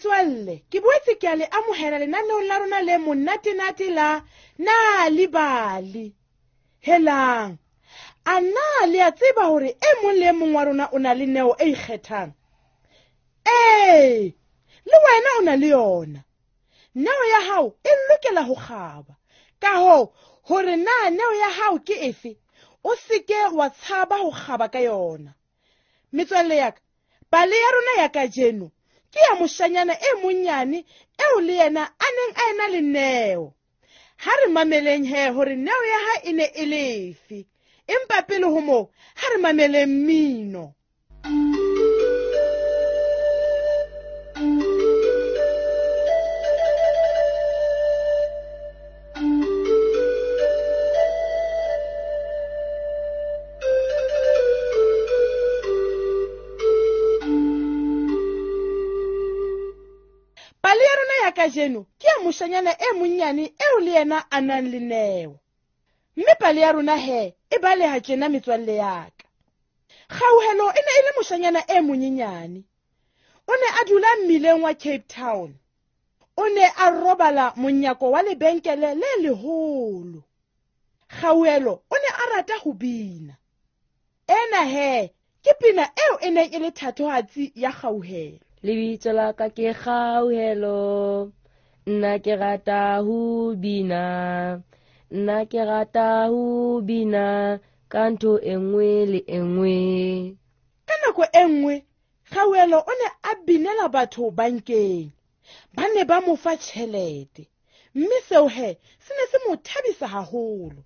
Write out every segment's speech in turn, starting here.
Metswalle, ke boetse ke a le amohela lenaneong la rona le monate-nate la Nal'ibali. Helang, a na le a tseba hore e mong le e mong wa rona o na le neo e ikgethang? Ee, le wena o na le yona. Neo ya hao e lokela ho kgaba. Ka hoo, hore na neo ya hao ke efe, o seke wa tshaba ho kgaba ka yona. Metswalle ya ka, pale ya rona ya kajeno ke ya moshanyana e monyane eo le yena a neng a ena le neo. Ha re mameleng he hore neo ya hae e ne e le efe. Empa pele ho moo, ha re mameleng mmino. Pale ya rona ya kajeno ke ya moshanyana e monyane eo le yena a nang le neo. Mme pale ya rona he e baleha tjena metswalle ya ka. Kgauhelo e ne e le moshanyana e monyenyane. O ne a dula mmileng wa Cape Town. O ne a robala monyako wa lebenkele le leholo. Kgauhelo o ne a rata ho bina. Ena he ke pina eo e neng e le thatohatsi ya Kgauhelo. Lebitso la ka ke Kgauhelo, nna ke rata ho bina, nna ke rata ho bina ka ntho e nngwe le e nngwe. Ka nako e nngwe, Kgauhelo o ne a binela batho bankeng. Ba ne ba mo fa tjhelete, mme seo he se ne se mo thabisa haholo.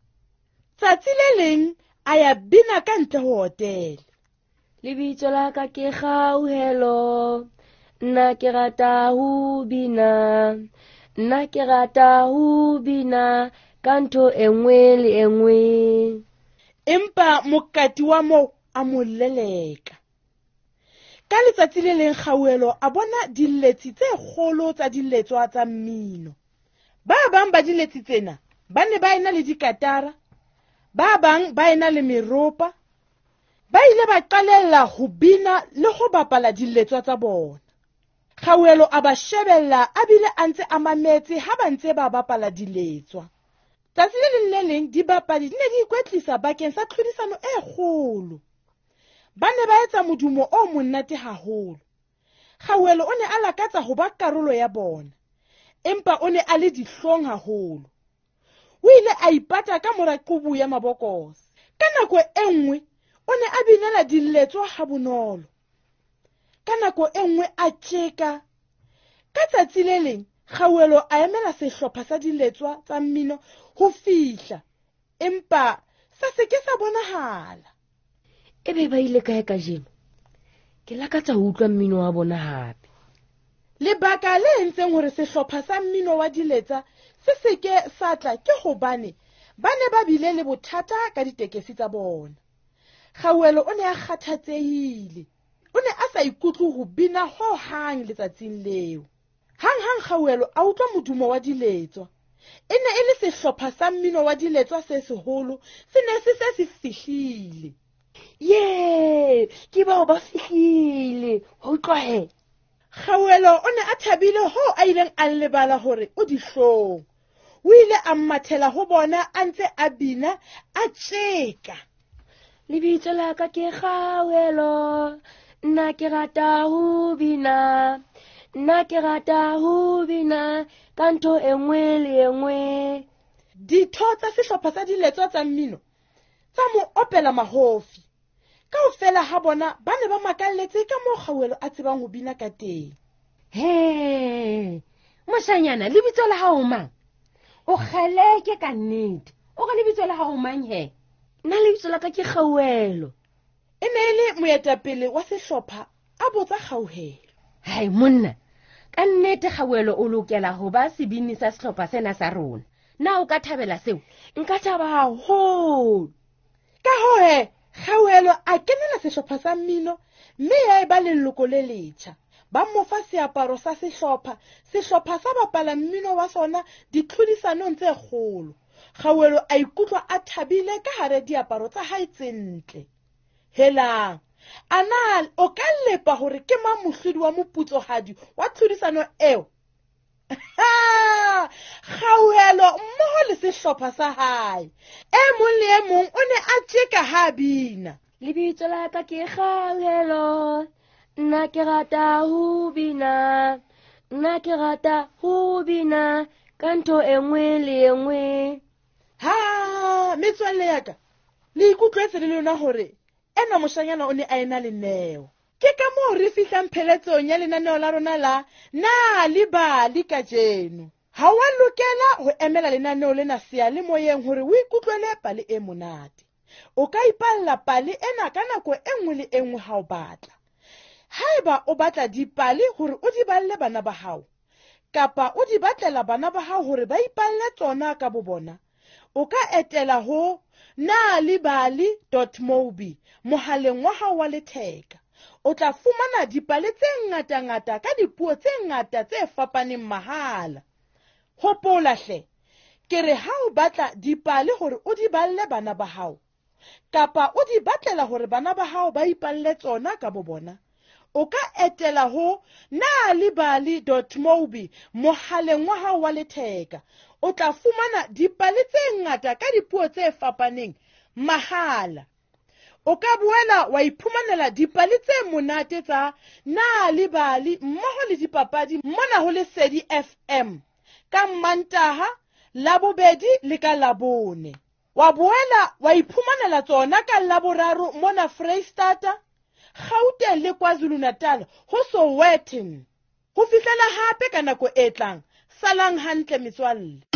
Tsatsi le leng a ya bina ka ntle ho hotele. Lebitso la ka ke Kgauhelo, nna ke rata ho bina, nna ke rata ho bina ka ntho e nngwe le e nngwe. Empa mokati wa moo a mo leleka. Ka letsatsi le leng Kgauhelo a bona diletsi tse kgolo tsa diletswa tsa mmino. Ba bang ba diletsi tsena ba ne ba ena le dikatara, ba bang ba ena le meropa. Ba ile ba qalella ho bina le ho bapala diletswa tsa bona. Kgauhelo a ba shebella a bile a ntse a mametse ha ba ntse ba bapala diletswa. Tsatsi le leng le leng dibapadi di ne di ikwetlisa bakeng sa tlhodisano e kgolo. Ba ne ba etsa modumo o monate haholo. Kgauhelo o ne a lakatsa ho ba karolo ya bona, empa o ne a le dihlong haholo. O ile a ipata ka mora qubu ya mabokose. Ka nako e nngwe o ne a binela diletswa ha bonolo. Ka nako e nngwe a tjeka. Ka tsatsi le leng Kgauhelo a emela sehlopha sa diletswa tsa mmino ho fihla, empa sa se ke sa bonahala. Ebe ba ile kae kajeno? Ke lakatsa ho utlwa mmino wa bona hape. Lebaka le entseng hore sehlopha sa mmino wa diletsa se se ke sa tla ke hobane ba ne ba bile le bothata ka ditekesi tsa bona. Kgauhelo o ne a kgathatsehile. O ne a sa ikutlwe ho bina hohang letsatsing leo. Hanghang Kgauhelo a utlwa modumo wa diletswa. E ne e le sehlopha sa mmino wa diletswa se seholo, se ne se se se fihlile. Ye, ke bao ba fihlile. Ho utlwa he. Kgauhelo o ne a thabile hoo a ileng a lebala hore o dihlong. O ile a mathela ho bona a ntse a bina a tjeka. Lebitso la ka ke Kgauhelo, nna ke rata ho bina, nna ke rata ho bina ka ntho e nngwe le e nngwe. Ditho tsa sehlopha sa diletswa tsa mmino tsa mo opela mahofi. Kaofela ha bona ba ne ba makalletse ka moo Kgauhelo a tsebang ho bina ka teng. He, moshanyana, lebitso la hao mang? O kgeleke ka nnete. O re lebitso la hao mang he? Nna lebitso la ka ke Kgauhelo. E ne e le moetapele wa sehlopha a botsa Kgauhelo. Hai monna, ka nnete Kgauhelo o lokela ho ba sebini sa sehlopha sena sa rona. Na o ka thabela seo? Nka thaba haholo. Ka hoo he, Kgauhelo a kenela sehlopha sa mmino mme ya eba leloko le letjha. Ba mo fa seaparo sa sehlopha, sehlopha sa bapala mmino wa sona ditlhodisanong tse kgolo. Kgauhelo a ikutlwa a thabile ka hare diaparo tsa hae tse ntle. Helang, A na o ka lepa hore ke mang mohlodi wa moputsohadi wa tlhodisano eo? Kgauhelo mmoho le sehlopha sa hae. E mong le e mong o ne a tjeka ha a bina. Lebitso la ka ke Kgauhelo, nna ke rata ho bina, nna ke rata ho bina ka ntho e nngwe le e nngwe. Ha, metswalle ya ka, le ikutlwetse le lona hore enwa moshanyana o ne a ena le neo. Ke ka moo re fihlang pheletsong ya lenaneo la rona la Na le Bali kajeno. Ha wa lokela ho emela lenaneo lena seyalemoyeng hore o ikutlwele pale e monate. O ka ipalla pale ena ka nako e nngwe le e nngwe ha o batla. Haeba o batla dipale hore o di balle bana ba hao, kapa o di batlela bana ba hao hore ba ipalle tsona ka bobona, o ka etela ho nalibali.mobi mohaleng wa hao wa letheka. O tla fumana dipale tse ngatangata ka dipuo tse ngata tse fapaneng mahala. Hopola hle, ke re ha o batla dipale hore o di balle bana ba hao, kapa o di batlela hore bana ba hao ba ipalle tsona ka bobona, o ka etela ho nalibali.mobi mohaleng wa hao wa letheka. O tla fumana dipale tse ngata ka dipuo tse fapaneng mahala. O ka boela wa iphumanela dipale tse monate tsa Nalibali mmoho le dipapadi mona ho Lesedi FM ka Mmantaha, Labobedi le ka Labone. Wa boela wa iphumanela tsona ka Laboraro mona Freistata, Gauteng le KwaZulu-Natal ho Sowetan. Ho fihlela hape ka nako e tlang, salang hantle metswalle.